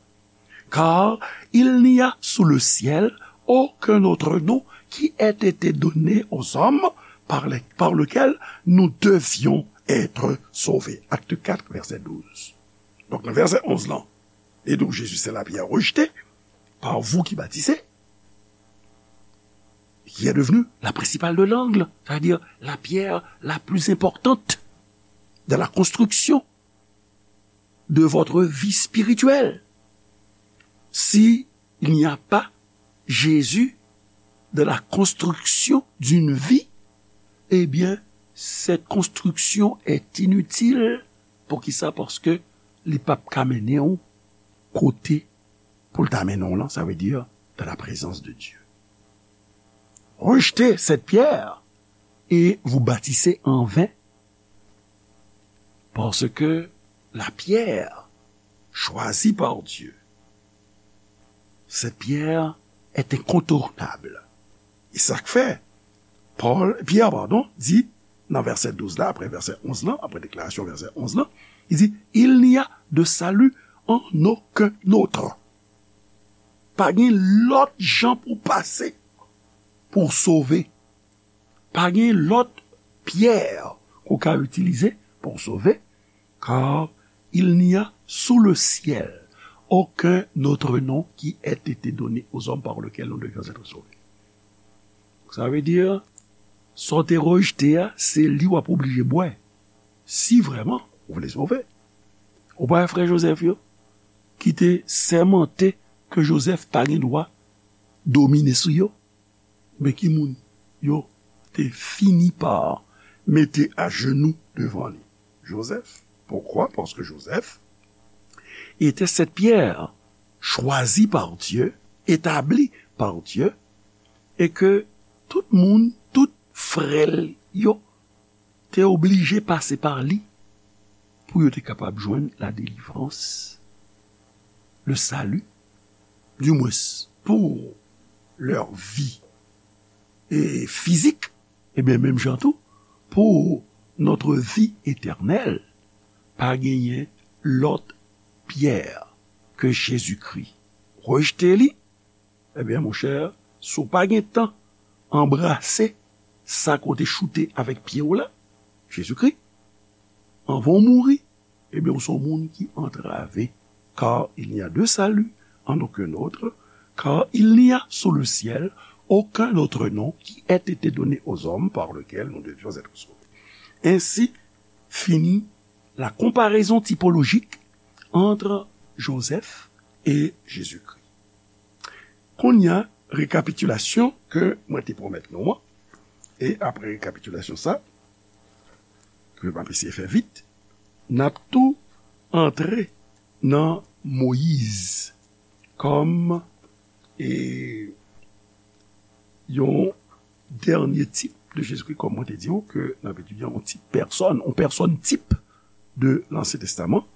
Car il n'y a sous le ciel aucun autre nom qui ait été donné aux hommes par, les, par lequel nous devions être sauvés. Acte quatre, verset douze. Donk, nan vèsè onz lan, li di w, Jésus, c'est la pierre rejetée par vous qui bâtissez, qui est devenue la principale de l'angle, c'est-à-dire la pierre la plus importante de la construction de votre vie spirituelle. Si il n'y a pas Jésus dans la construction d'une vie, eh bien, cette construction est inutile. Poukisa? Paske li p ap ka mennen w kote pou l ta mennen w lan, ça veut dire dans la présence de Dieu. Rejetez cette pierre et vous bâtissez en vain, parce que la pierre choisie par Dieu, cette pierre est incontournable. E sa k fè Pòl, Pyè, padon, di nan vèsè douz la, apre vèsè onz lan, apre deklarasyon vèsè onz lan, li di, il n'y a de salut en aucun autre. Pa gen lòt jan pou pase pou w sove. Pa gen lòt pyè ke w ka itilize pou w sove, car il n'y a sous le ciel aucun autre nom qui ait été donné aux hommes par lequel nous devions être sauvés. Sa vle di, sa w te rejte a, se li w ap oblije bwè. Si vrèman ou vle sove. Ou pa wè frè Jozèf yo, ki te sèmante ke Jozèf pa gen dwa domine sou yo? Men ki moun yo te fini pa mete ajenou devan li? Jozèf. Poukwa? Paske Jozèf était cette pierre choisie par Dieu, établie par Dieu, e ke tout moun, tout frè l yo te oblije pase pa li pou yo te kapab jwenn la délivrance, le salut, du moins pour leur vie e fizik, ebyen, menm jan tou, pour notre vie éternelle, pa genyen lòt pyè ke Jezikri. Rejte li, ebyen, monchè, si w pa gen tan anbrase sa ke w te choute avèk pye w la, Jezikri, anvan w mouri, ebyen, ou se yon moun ki antrave. Car il n'y a de salut en aucun autre, car il n'y a sous le ciel aucun autre nom qui ait été donné aux hommes par lequel nous devions être sauvés. Ainsi finit la comparaison typologique entre Joseph et Jésus-Christ. Kounye a, rekapitilasyon ke mwen te pwomèt nou an, e apre rekapitilasyon sa, ke m ap eseye fè vit, n ap tou antre nan Moyiz kòm, e, yon dènye tip de Jezikri, kòm mwen te di w, ke n ap etidye yon tip pèsòn, yon pèsòn tip de Lansyen Testaman.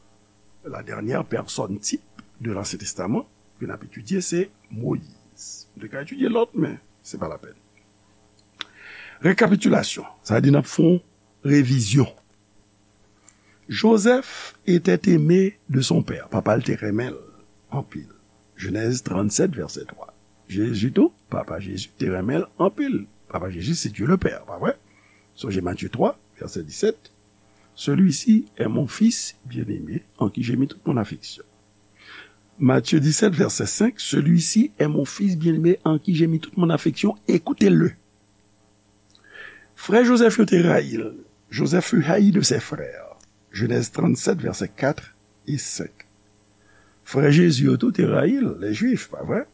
La dernière personne type de l'Ancien Testament ke n ap etidye, se Moyiz. Nou te ka etidye lòt, men se pa lapèn. Rekapitilasyon, sa vle di n ap fè yon revizyon. Joseph était aimé de son père. Papa l te renmen l anpil. Jenèz trannsèt, vèsè twa. Jezi tou, papa Jezi te renmen l anpil. Papa Jezi se Dieu le Père, pa vre? Sonje Matye twa, vèsè disèt. Celui-ci est mon fils bien-aimé, en qui j'ai mis toute mon affection. Matthieu dix-sept, verset cinq, celui-ci est mon fils bien-aimé, en qui j'ai mis toute mon affection, écoutez-le. Frè Joseph yo te rayi l. Joseph fut haï de ses frères. Genèse trente-sept, versets quatre et cinq. Frè Jezi yo tou te rayi l, les Juifs, pa vre?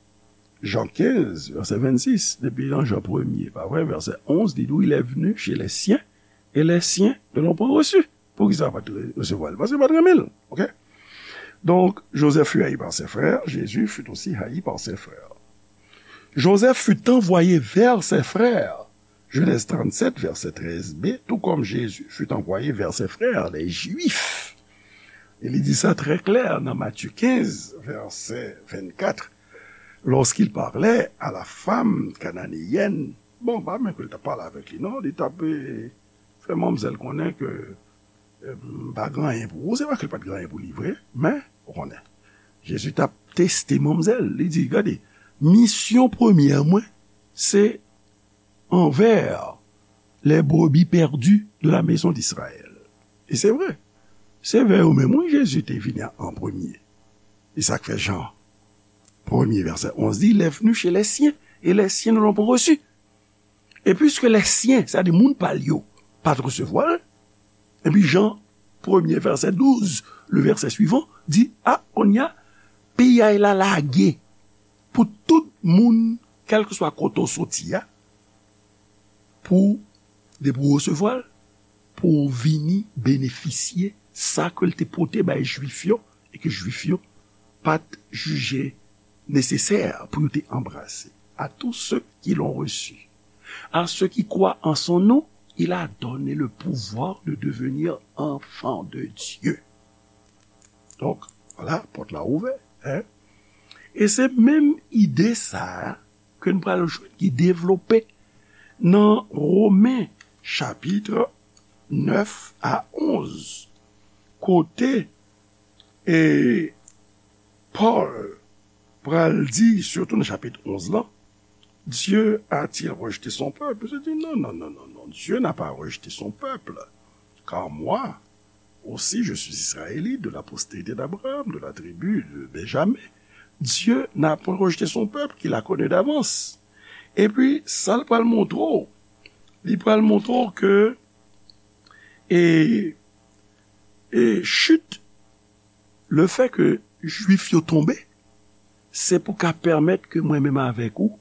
Jean quinze, verset vingt-six, depi nan Jan premye, pa vre? Verset onze, li di w, il est venu chez les siens, et les siens ne l'ont point reçu. Poukisa yo pa t re-, resevwa l? Paske yo pa t renmen l. Oke? Donc, Joseph fut haï par ses frères, Jésus fut aussi haï par ses frères. Joseph fut envoyé vers ses frères, Genèse trente-sept, verset treize b, tout comme Jésus fut envoyé vers ses frères, les Juifs. E li di sa trè klè nan Matthieu quinze, verset vingt-quatre, lorsqu'il parlait à la femme cananéenne. Bon, pa menm ke l t ap pale avèk li, non, li t ap, eh, fè manmzèl konnen ke, eh, m pa gen anyen pou ou. Se pa ke l pa t gen anyen pou li vre, men, ou konnen, Jezi t ap teste manmzèl. Li di, gade, misyon premyè mwen, se envers les brebis perdues de la maison d'Israël. E se vre. Se vè yo menm, wi, Jezi te vini an premye. E sa k fè Jan premye vèsè onz di, il est venu chez les siens, et les siens ne l'ont pas reçu. E piske les siens, sa di moun pa l yo, pa t resevwa l, epi Jan premye vèsè douz, le vèsè swivan, di, a, kounye a, piyay la lage pou tout moun, kèlkeswa kote w soti a, pou, depi w resevwa l, pou w vini benefisye sa ke l te pote bay Jwif yo, e ke Jwif yo pa t jije nesesè pou yo te anbrase. À tous ceux qui l'ont reçu, à ceux qui croient en son nom, il a donné le pouvoir de devenir enfants de Dieu. Donk, vwala, pòt la ouvè, en. E se menm ide sa a ke n pral jwenn ki devlope nan Women chapit nèf a onz, kote, e, Pòl pral di, sitou nan chapit onz lan, Dieu a-t-il rejeté son peuple? Je dis, non, non, non, non, non, Dieu n'a pas rejeté son peuple. Car moi aussi, je suis israélite, de la postérité d'Abraham, de la tribu de Benjamin. Dieu n'a point rejeté son peuple qu'il a connu d'avance. Epi, sa l pral montre w, li pral montre w ke, e, e chit, le fè ke Jwif yo tonbe, se pou ka pèmèt ke mwen menm avèk ou,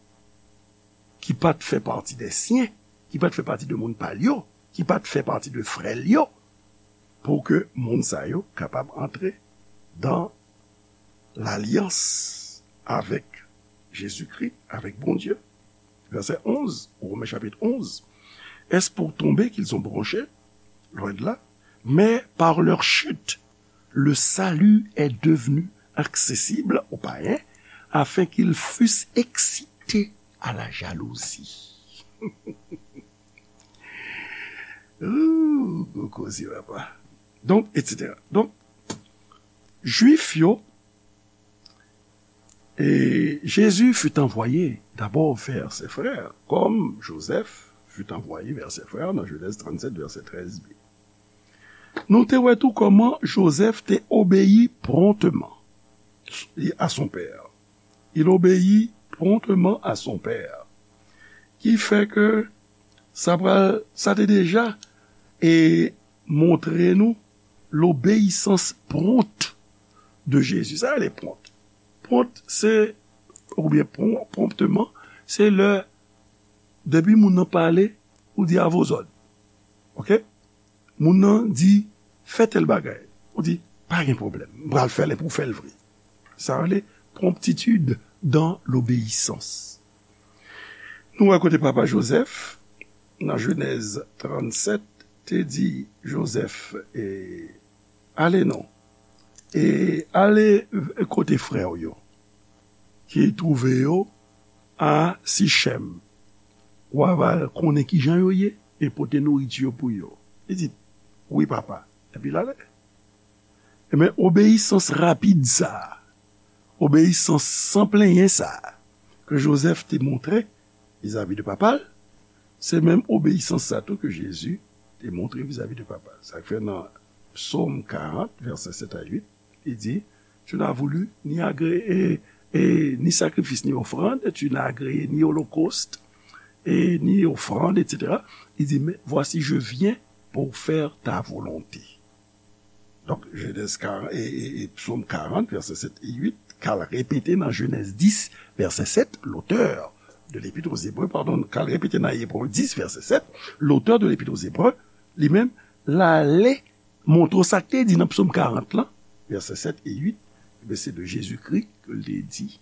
ki pa t fè pati de syen, ki pa t fè pati de moun pa l yo, ki pa t fè pati de frè l yo, pou ke moun sa yo kapab antre dan lalyans avèk Jezikri, avèk Bondye. Vèsè onz, Women chapit onz. Est-ce pour tomber qu'ils ont bronché? Loin de là. Mais par leur chute, le salut est devenu accessible aux païens, afin qu'ils fussent excités à la jalousie. Ooh, gwo koze, papa. Donk, et cetera. Donk, Jwif yo, et Jésus fut envoyé d'abord vers ses frères, comme Joseph fut envoyé vers ses frères dans Genèse trente-sept, verset treize b. Nou te wè tou kòman Joseph te obeyi promptement à son père. Il obéit promptement à son père. Ki fè ke sa pral, sa te deja e montre nou lobeyisans pwont de Jezi. Sa rele pwont. Pwont, se, oubyen pwon-, pwonpteman, se lè, depi moun nan pale, ou di, à vos ordres. Oke? Moun nan di, fè tèl bagay. Ou di, pa gen pwoblèm. M pral fè l epi w fè l vre. Sa rele promptitude dans l'obéissance. Nou wè kote papa Joseph, nan Jenèz trannsèt, te di Joseph, e, ale non. E ale kote frè w yo, ki twouve yo a Sichèm. W a va konnen kijan yo ye, e pote nouriti yo pou yo. Li di, wi, papa. Epi l ale. Ebyen, obeyisans rapid sa a, obeyisans san plenyen sa a, ke Joseph te montre vizavi de papa l, se menm obeyisans sa tou ke Jezi te montre vizavi de papa l. Sa k fè nan Psaume quarante, verset sept à huit, li di, tu n'as voulu ni agré-, e, e, ni sacrifice, ni offrande, tu n'as agréé ni holocauste, e, ni offrande, et cetera. Li di, mais voici, je viens pour faire ta volonté. Donk, Jenèz quarante, e, e, e Psaume quarante, verset sept et huit, k al repete nan Jenèz dis, verset sept, l'auteur de l'Épître aux Hébreux, pardon, k al repete nan Ebre dis, verset sept, l'auteur de l'Épître aux Hébreux, li menm, l ale montre w sa k te di nan Psaume quarante lan, verset sept et huit, ebyen, se de Jezikri ke l te di.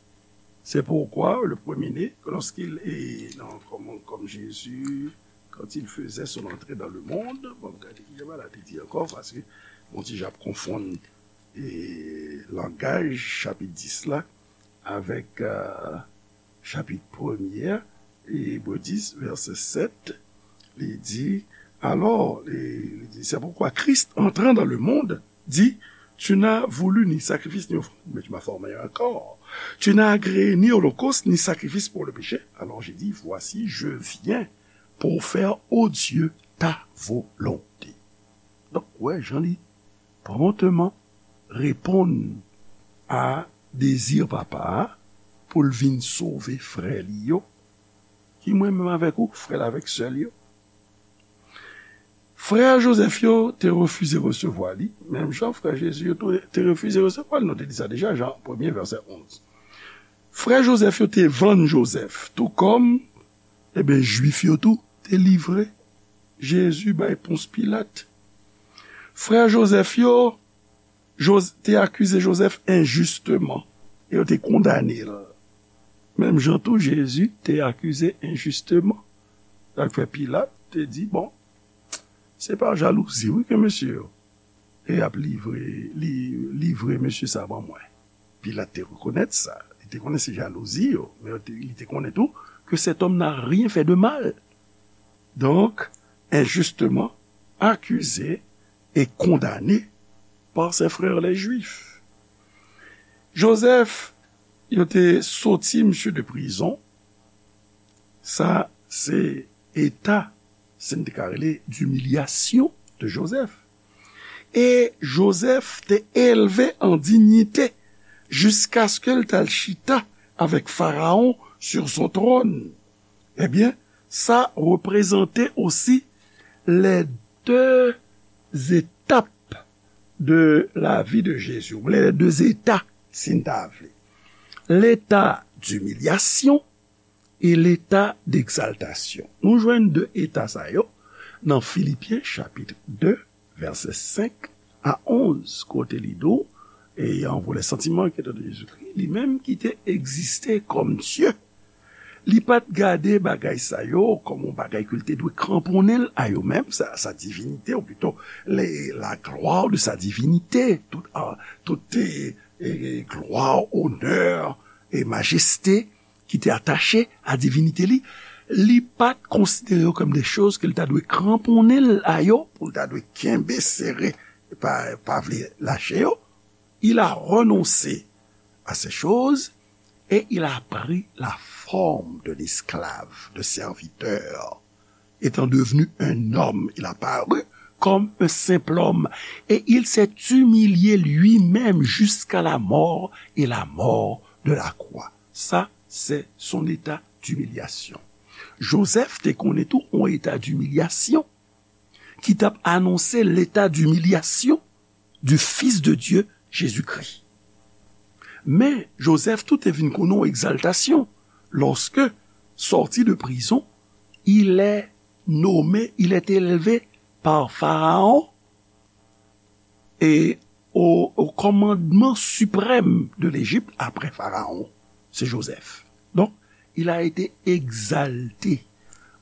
C'est pourquoi le premier-né, lorsqu'il est, non, comme, comme Jésus, quand il faisait son entrée dans le monde, bon, gade ki jan bagay la te di ankò, paske, bon, ti jan ap konfonn, e, langaj chapit dis la avèk, euh, chapit premye, Ebre dis, vèsè sèt, li di, alors, li, li di, c'est pourquoi Christ, entrant dans le monde, dit, tu n'as voulu ni sacrifice ni offrande, mais tu m'as formé un corps. Tu n'as agréé ni holocauste ni sacrifice pour le péché. Alors j'ai dit, voici, je viens pour faire, ô Dieu, ta volonté. Donk, wè, jan li, promptement reponn a dezi papa a pou l vin sove frè li yo, ki mwen menm avèk ou, frè l avèk sè l yo. Frè Jozèf yo te refize resevwa li, menm jan frè Jezi yo tou te refize resevwa l. Nou te li sa deja, Jan premye, vèsè onz. Frè Jozèf yo te vann Jozèf, tou kòm, ebyen, Jwif yo tou te livre Jezi bay Pons Pilat. Frè Jozèf yo Joz- te akize Jozèf enjisteman, e yo te kondane l. Menm jan tou, Jezi te akize enjisteman. Sa k fè Pilat te di, bon, se pa jalouzi, wi, ke mesye yo e ap livre, li, livre mesye sa ban mwen. Pilat te rekonèt sa. Li te konnen se jalouzi yo, men li te konnen tou que cet homme n'a rien fait de mal. Donc, injustement accusé et condamné par ses frères les Juifs. Jozèf, yo te soti misye de prizon. Sa se eta, si n te ka rele, d'humiliation de Joseph. E Jozèf te elve an dinyite jiskaske l t al chita avèk Farawon sur son trône. Ebyen, sa reprezante osi les deux étapes de la vie de Jésus, les deux états, si n ta vle. L'état d'humiliation et l'état d'exaltation. Nou jwenn de eta sa yo nan Filipyen chapit de, vèsè senk a onz, kote li di w, ayant pour les sentiments qui étaient de Jésus-Christ, li menm ki te egziste kòm Dye, li pa t gade bagay sa yo kòm yon bagay ke l te dwe kranponnen l a yo menm, sa, sa divinite, ou plito, le, la gloire de sa divinité, tout, ah, tout, eh, eh, gloire, honneur et majesté ki te atache a divinite li, li pa t konsidere yo kòm de choz ke l ta dwe kranponnen l a yo, pou l ta dwe kenbe sere, pa, pa vle lache yo. Il a renoncé à ces choses et il a pris la forme de l'esclave, de serviteur. Étant devenu un homme, il a paru comme un simple homme et il s'est humilié lui-même jusqu'à la mort et la mort de la croix. Sa, se son eta d'himilyasyon. Jozèf te konnen tou yon eta d'himilyasyon ki t ap anonse l'état d'humiliation du Fils de Dieu, Jésus-Christ. Men, Jozèf tou te vin konnen yon egzaltasyon. Lorsque, sorti de prison, il est nommé, il est élevé par Pharaon et au, au commandement suprême de l'Égypte après Pharaon. C'est Joseph. Donc, il a été exalté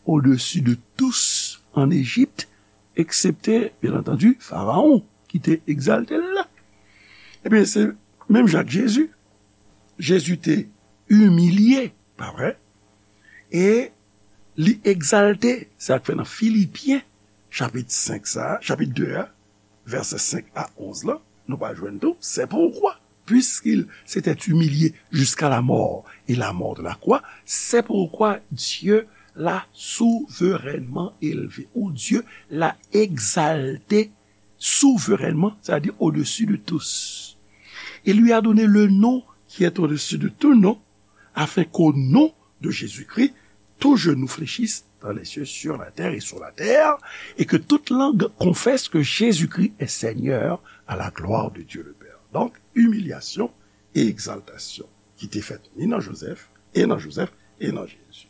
au-dessus de tous en Égypte, excepté, bien entendu, Pharaon, ki te egzalte l la. Ebyen, se menm jan ak Jezi. Jezi te imilye, pa vre? E li egzalte, sa k fè nan Filipyen, chapit senk sa, chapit de a, vèsè senk a onz la, nou pral jwenn tou, c'est pourquoi, puisqu'il s'était humilié jusqu'à la mort et la mort de la croix, c'est pourquoi Dieu l'a souverainement élevé, ou Dieu l'a exalté souverainement, c'est-à-dire au-dessus de tous. Il lui a donné le nom qui est au-dessus de tout nom, afin qu'au nom de Jésus-Christ, tout genou fléchisse dans les cieux, sur la terre et sur la terre, et que toute langue confesse que Jésus-Christ est Seigneur à la gloire de Dieu le Père. Donc, humiliation et exaltation qui te fèt ni nan Joseph, et nan Joseph, et nan Jésus.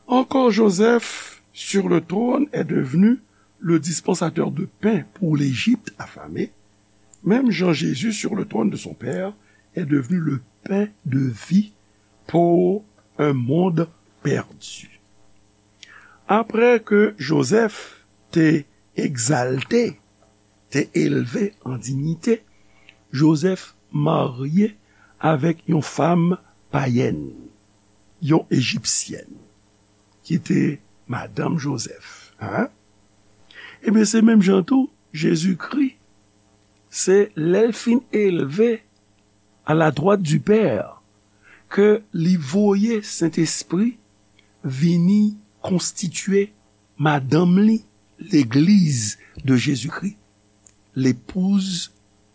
Encore Joseph, sur le trône, est devenu le dispensateur de pain pour l'Égypte affamée, même Jean Jésus, sur le trône de son Père, est devenu le pain de vie pour un monde perdu. Après que Joseph te egzalte, te elve an dinyite, Jozèf marye avèk yon fanm payèn, yon ejipsyèn, ki te madanm Jozèf. Hein? Ebyen, se menm jan tou, Jezikri, se lè l fin elve à la droite du Père, ke li voye Sentespri vini konstitye madanm li, legliz de Jezikri. l'épouse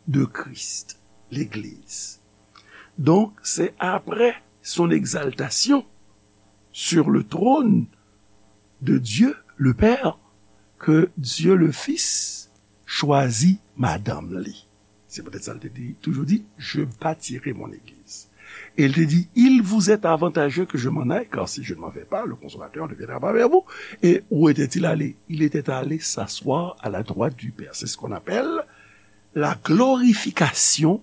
de Christ, l'Église. Donc, c'est après son exaltation sur le trône de Dieu le Père que Dieu le Fils chwazi madanm li. Se poutèt sa l te di, toujou di, je bâtirai mon église. Et il te dit, il vous est avantageux que je m'en aille, car si je ne m'en vais pas, le Consolateur ne viendra pas vers vous. Et où était-il allé? Il était allé s'asseoir à la droite du Père. C'est ce qu'on appelle la glorification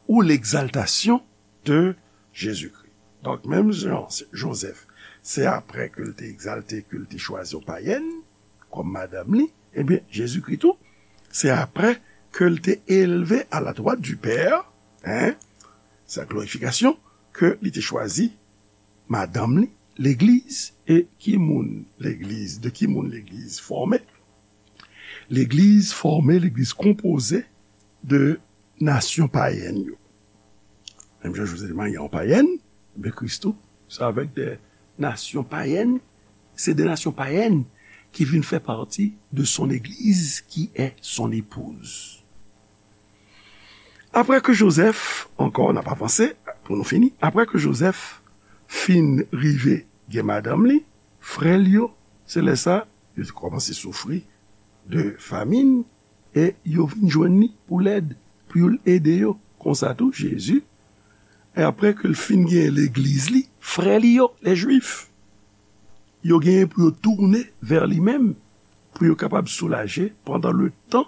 ou l'exaltation de Jésus-Christ. Donk, menm jan Jozèf, se apre ke l te egzalte, ke l te chwazi yon payèn kòm madanm li, ebyen, Jezikri tou, se apre ke l te elve à la droite du Père, hein, sa glorifikasyon, ke li te chwazi madanm li, legliz, e ki moun legliz, de ki moun legliz fòme? Legliz fòme, legliz konpoze de nasyon payèn yo. Menm jan Jozèf te marye yon payèn, ebyen Kris tou, se avèk de nasyon payèn, se de nasyon payèn ki vin fè pati de son église qui est son épouse. Apre ke Jozèf, ankò n ap avanse, pou nou fini, apre ke Jozèf fin rive gen madanm li, frè l yo, se lè sa, yo te kòmanse soufri de famin, e yo vin jwenn li pou lèd, pou l ede yo. Konsa tou, Jezi, e apre ke l fin gen legliz li, frè li yo, lè Jwif, yo genyen pou yo tounen vè li menm, pou yo kapab soulaje pandan le tan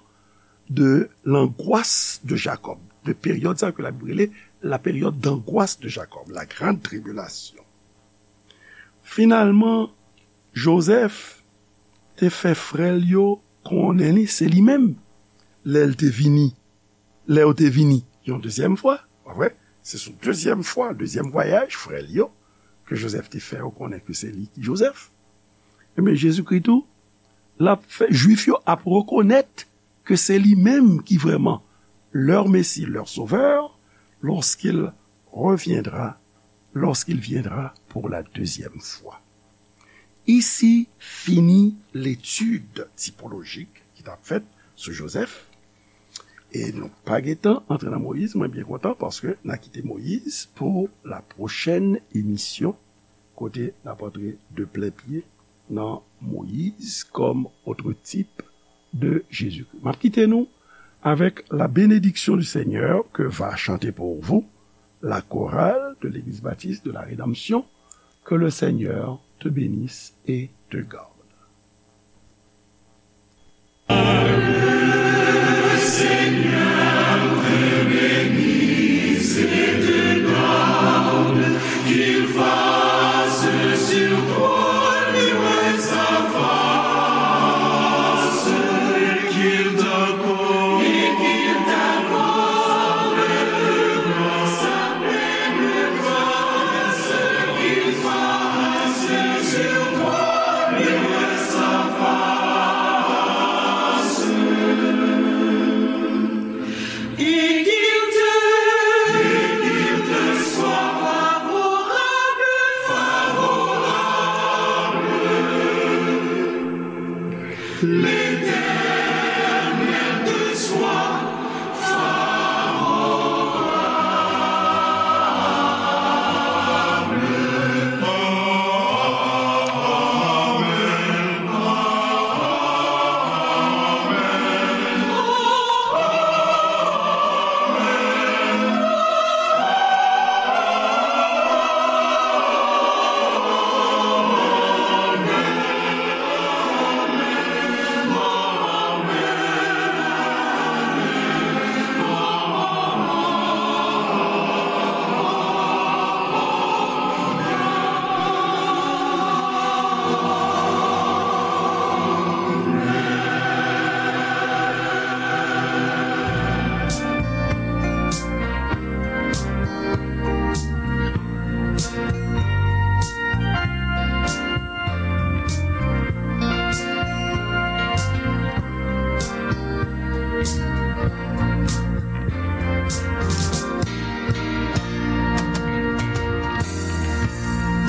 de l'angoisse de Jacob, de peryòd sa ke Labib rele la période d'angoisse de Jacob, la grande tribulation. Finalman, Jozèf te fè frè l yo konnen li se li menm. Lè l te vini, lè yo te vini yon dezyèm fwa, pa vre? Se sou dezyèm fwa, dezyèm vwayaj, frè l yo, ke Jozèf te fè yo konnen ke se li ki Jozèf. Ebyen, Jezikri tou, l ap fè, Jwif yo ap rekonèt ke se li menm ki vrèman leur Messie, leur Sauveur, lorsqu'il reviendra, lorsqu'il viendra pour la deuxième fois. Isi fini letid tipolojik ki t ap fèt sou Jozèf. E nou pa gentan antre nan Moyiz, mwen byen kontan paske n a kite Moyiz pou la pwochèn emisyon, kote n ap antre de plen pye nan Moyiz kòm otwo tip de Jezikri. M ap kite nou avec la bénédiction du Seigneur que va chanter pour vous la chorale de l'Église baptiste de la Rédemption. Que le Seigneur te bénisse et te garde.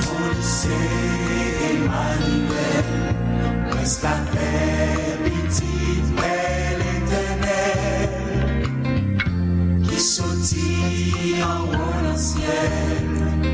Moïse Emmanuel, reste à